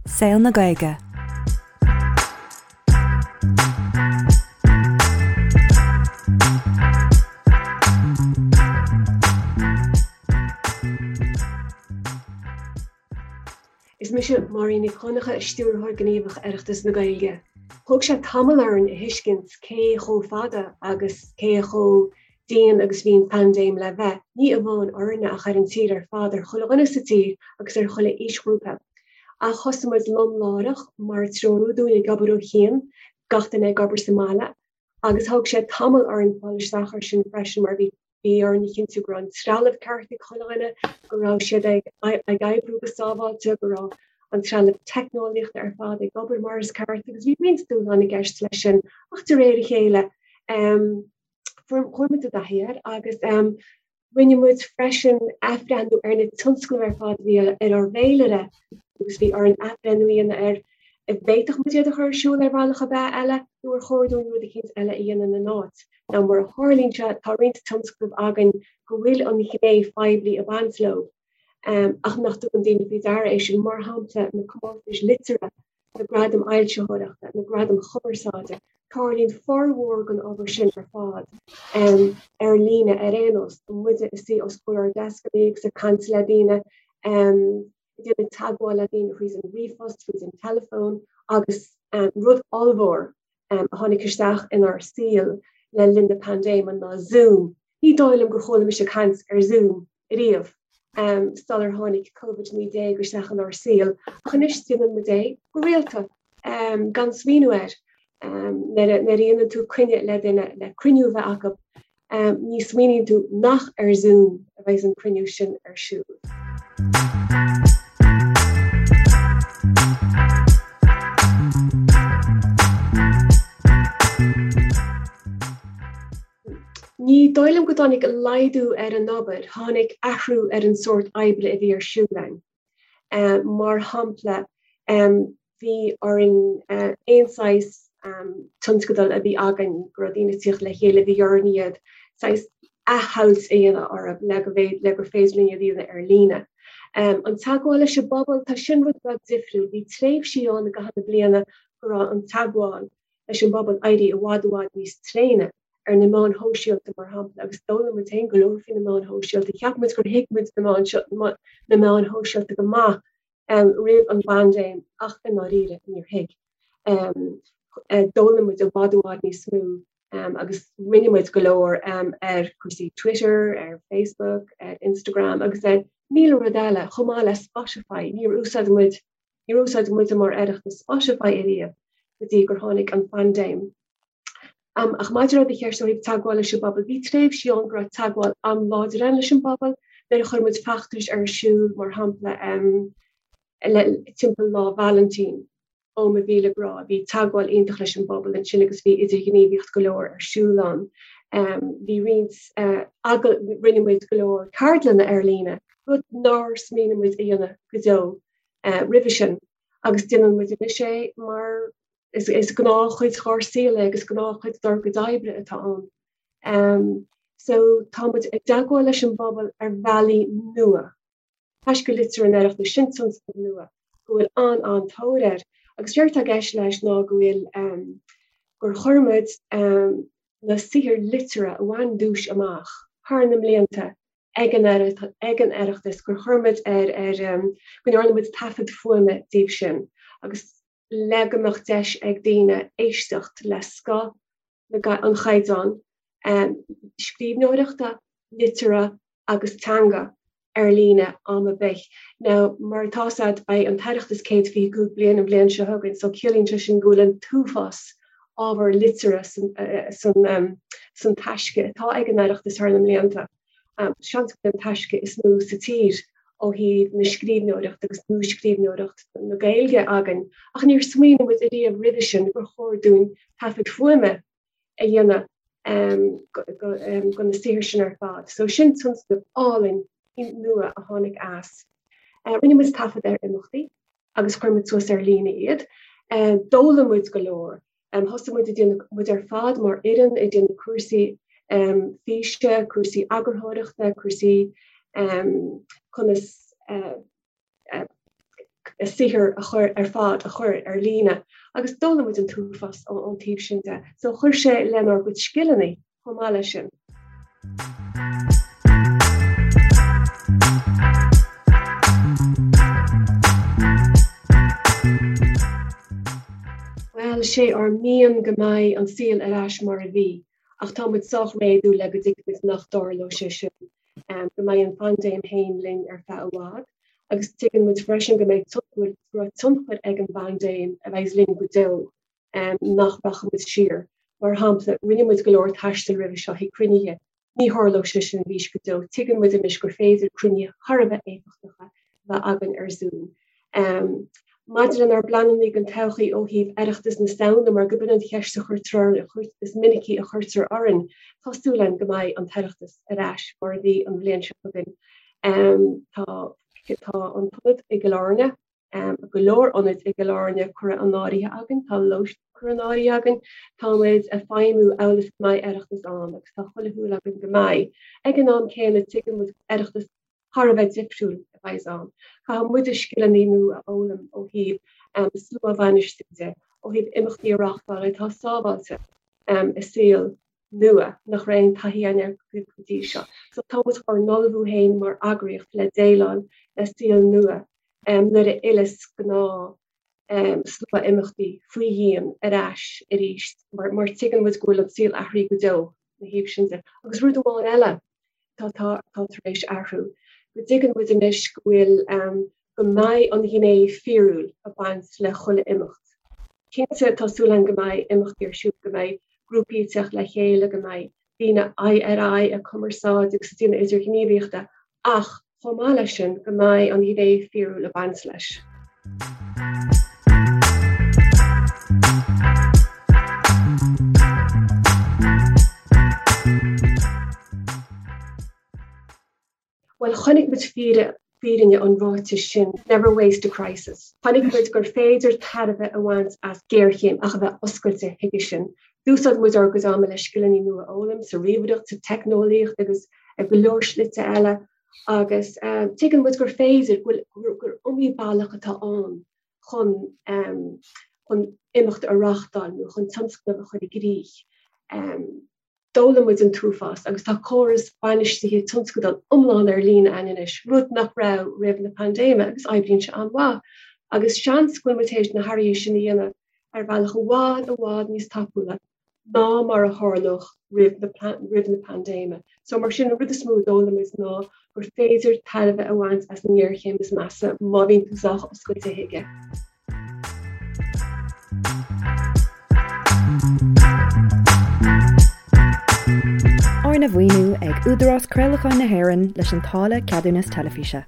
Saol na Gaeilge. Is mise Máirín Nic Dhonncha, Stiúrthóir Gníomhach Oireachtas na Gaeilge. Thóg sé tamall orainn a thuiscint cé chomh fada agus cé chomh dian agus bhí an phaindéim le bheith, ní amháin orainne ach ar an tír ar fad, ar chuile dhuine sa tír agus ar chuile aoisghrúpa. Ach thosaigh muid lom láithreach, mar a treoraíodh dúinn, ag obair ó chian, gach duine ag obair sa mbaile, agus thóg sé tamall orainn fáil isteach air sin freisin mar bhí bhí orainn a chinntiú go raibh an trealamh ceart ag chuile dhuine, go raibh siad ag ag oibriú go sábháilte, go raibh an trealamh teicneolaíochta ar fad ag obair mar is ceart agus bhí roinnt dúshlán i gceist leis sin ach de réir a chéile Chuaigh muid i dtaithí air agus rinne muid freisin athbhreithniú ar na tionscnaimh ar fad a bhí ar ár bhféilire agus bhí orainn athbhreithniú a dhéanamh ar an bhféadfadh muid iad a chur ar siúl ar bhealach ar bith eile nó ar chóir dúinn rud eicínt eile a dhéanamh ina n-áit. Now mar a tharlaíonn sé, tá roinnt tionscnamh againn go bhfuil an ghné phoiblí ag baint leo ach nach dtugann daoine faoi deara é sin, mar shampla na comórtais liteartha na gradaim fhoilsitheoireachta, na gradaim chumarsáide, tarlaíonn formhór den obair sin ar fad ar líne ar aon nós, muide ag suí os comhair ár ndeascanna agus ag caint le daoine, ag déanamh teagmháil le daoine thríd an ríomhphost, thríd an teileafón agus rud ollmhór a tháinig isteach inár saol le linn na paindéime ná Zoom. Ní dóigh liom gur chuala mise caint ar Zoom riamh sular tháinig Covid-19 isteach inár saol, ach anois déanann muid é go rialta gan smaoineamh air. Nuair a dhéanann tú coinne le duine le cruinniú a bheith acu, ní smaoiníonn tú nach ar Zoom a bheidh an cruinniú sin ar siúl. Ní dóigh liom go dtáinig laghdú ar an obair, tháinig athrú ar an sórt oibre a bhí ar siúl againn. Mar shampla, bhí orainn aon saghas tionscadal a bhí againn go raibh daoine ag tíocht le chéile, bhí orainn iad saghas athshamhailt a dhéanamh orthu le go le gur féidir linn iad a dhéanamh ar líne. An teagmháil leis an bpobal, tá sin rud beag difriúil. Bhí tréimhsí ann i gcaitheamh na bliana go raibh an teagmháil leis an bpobal éirithe i bhfad i bhfad níos tréine ar na meáin shóisialta, mar shampla, agus d'fhoghlaim muid féin go leor faoi na meáin shóisialta. Cheap muid gur thuig muid na meáin seo, na meáin shóisialta go maith roimh an bpaindéim ach i ndáiríre níor thuig. D'fhoghlaim muid i bhfad i bhfad níos mó agus rinne muid go leor ar chúrsaí Twitter, ar Facebook, ar Instagram agus ar 1000 rud eile, chomh maith le Spotify. Níor úsáid muid Níor úsáid muide mar Oireachtas Spotify ariamh go dtí gur tháinig an phaindéim. Ach maidir le do cheist ó thaobh teagmháil leis an bpobal, bhí tréimhsí ann go raibh teagmháil an-láidir ann leis an bpobal, nuair a chuir muid feachtais ar siúl, mar shampla, le timpeall Lá Vailintín. Ó mo mhíle grá, bhí teagmháil iontach leis an bpobal ansin agus bhí idirghníomhaíocht go leor ar siúl ann. Bhí roinnt, rinne muid go leor ceardlanna ar líne, rud nár smaoinigh muid a dhéanamh go deo roimhe sin agus déanann muid anois é mar is gnáthchuid dhár saol é agus gnáthchuid dár gcuid oibre atá ann. So tá muid i dteagmháil leis an bpobal ar bhealaí nua. Taisce Liteartha an Oireachtais, sin tionscnamh nua go bhfuil an-an-tóir air agus séard atá i gceist leis ná go bhfuil gur chuir muid na saothair liteartha a bhain duais amach thar na mblianta ag an ag an Oireachtas gur chuir muid ar ar go ndearna muid taifead fuaime díobh sin agus le go mbeadh deis ag daoine éisteacht le scoth na an chaighdeáin scríbhneoireachta, liteartha agus teanga ar líne am ar bith. Now, mar atá 's a'd, beidh an tOireachtas 125 bliain an bhliain seo chugainn, so ciallaíonn sé sin go bhfuil an t-uafás ábhar liteartha san san taisce atá ag an Oireachtas thar na mblianta. Seans go bhfuil an taisce is mó sa tír ó thaobh na scríbhneoireachta agus nuascríbhneoireacht na Gaeilge againn, ach níor smaoinigh muid ariamh roimhe sin gur chóir dúinn taifead fuaime a dhéanamh de na saothair sin ar fad. So sin tionscnamh álainn nua a tháinig as. Rinne muid taifead ar imeachtaí agus chuir muid suas ar líne iad. D'fhoghlaim muid go leor. Thosaigh muid ag déanamh, muid ar fad mar fhoireann ag déanamh cúrsaí físe, cúrsaí eagarthóireachta, cúrsaí conas. saothar a chur ar fad a chur ar líne agus d'fhoghlaim muid an t-uafás ón taobh sin de. So chuir sé lenár gcuid scileanna chomh maith leis sin. Bhuel, sé ár mian go mbeidh an saol ar ais mar a bhí, ach tá muid sách réadúil le go dtuigimid nach dtarlóidh sé sin, go mbeidh an phaindéim féin linn ar feadh i bhfad, agus tuigeann muid freisin go mbeidh go raibh tionchar ag an bpaindéim a bheidh linn go deo, nach rachaidh muid siar. Mar shampla, rinne muid go leor taistil roimhe seo chuig cruinnithe, Ní tharlóidh sé sin arís go deo. Tuigeann muid anois gur féidir cruinnithe thar a bheith éifeachtacha a bheith againn ar Zoom. Maidir lenár bpleananna don todhchaí ó thaobh Oireachtas na Samhna, mar go b'in an cheist a chuirtear orainn, is minicí a chuirtear orainn, tá súil againn go mbeidh an tOireachtas ar ais mar a bhí an bhliain seo chugainn. Tá tá an t-ionad i gCill Airne, go leor ionaid i gCill Airne curtha in áirithe againn, tá lóistín curtha in áirithe againn, tá muid ag feidhmiú amhail is go mbeidh Oireachtas ann agus tá chuile shúil againn go mbeidh. Ag an am céanna tuigeann muid Oireachtas thar a bheith difriúil a bheidh ann. Caithfidh muide scileanna nua a fhoghlaim ó thaobh slua a bhainistiú de, ó thaobh imeachtaí a reáchtáil atá sábháilte i saol nua nach raibh aon taithí againn air go dtí seo. So tá muid ár n-ullmhú féin mar eagraíocht le déileáil le saol nua nuair a fhilleas gnáth slua imeachtaí faoi dhíon ar ais arís mar mar tuigeann muid go bhfuil an saol athraithe go deo ina thaobh sin de. Agus rud amháin eile tá tá tá tar éis athrú, go dtuigeann muid anois go bhfuil go mbeidh an ghné fíorúil ag baint le chuile imeacht. Cinnte, tá súil againn go mbeidh imeachtaí ar siúl, go mbeidh grúpaí ag teacht le chéile, go mbeidh daoine aghaidh ar aghaidh ag cumarsáid agus ag déanamh idirghníomhaíochta, ach chomh maith leis sin, go mbeidh an ghné fíorúil ag baint leis. Bhuel, chonaic muid fírinne an ráitis sin, never waste a crisis. Chonaic muid gur féidir tairbhe a bhaint as géarchéim ach a bheith oscailte chuige sin. D'úsáid muid ár gcuid ama le scileanna nua a fhoghlaim sa ríomhaireacht, sa teicneolaíocht agus i go leor slite eile agus tuigeann muid gur féidir, gur iomaí bealach atá ann chun chun imeacht a reáchtáil nó chun tionscnamh a chur i gcrích. D'fhoghlaim muid an t-uafás agus tá córas bainistithe tionscadal iomlán ar líne againn anois, rud nach raibh roimh na paindéime agus oibríonn sé an-mhaith. Agus seans go bhfuil muid théis na hathruithe sin a dhéanamh ar bhealach i bhfad, i bhfad níos tapúla ná mar a tharlódh roimh na roimh na paindéime. So mar sin, an rud is mó a d'fhoghlaim muid ná gur féidir tairbhe a bhaint as an ngéarchéim is measa má bhíonn tú sách oscailte chuige. Arna mhaoiniú ag Údarás Craolacháin na hÉireann leis an táille Ceadúnas Teilifíse.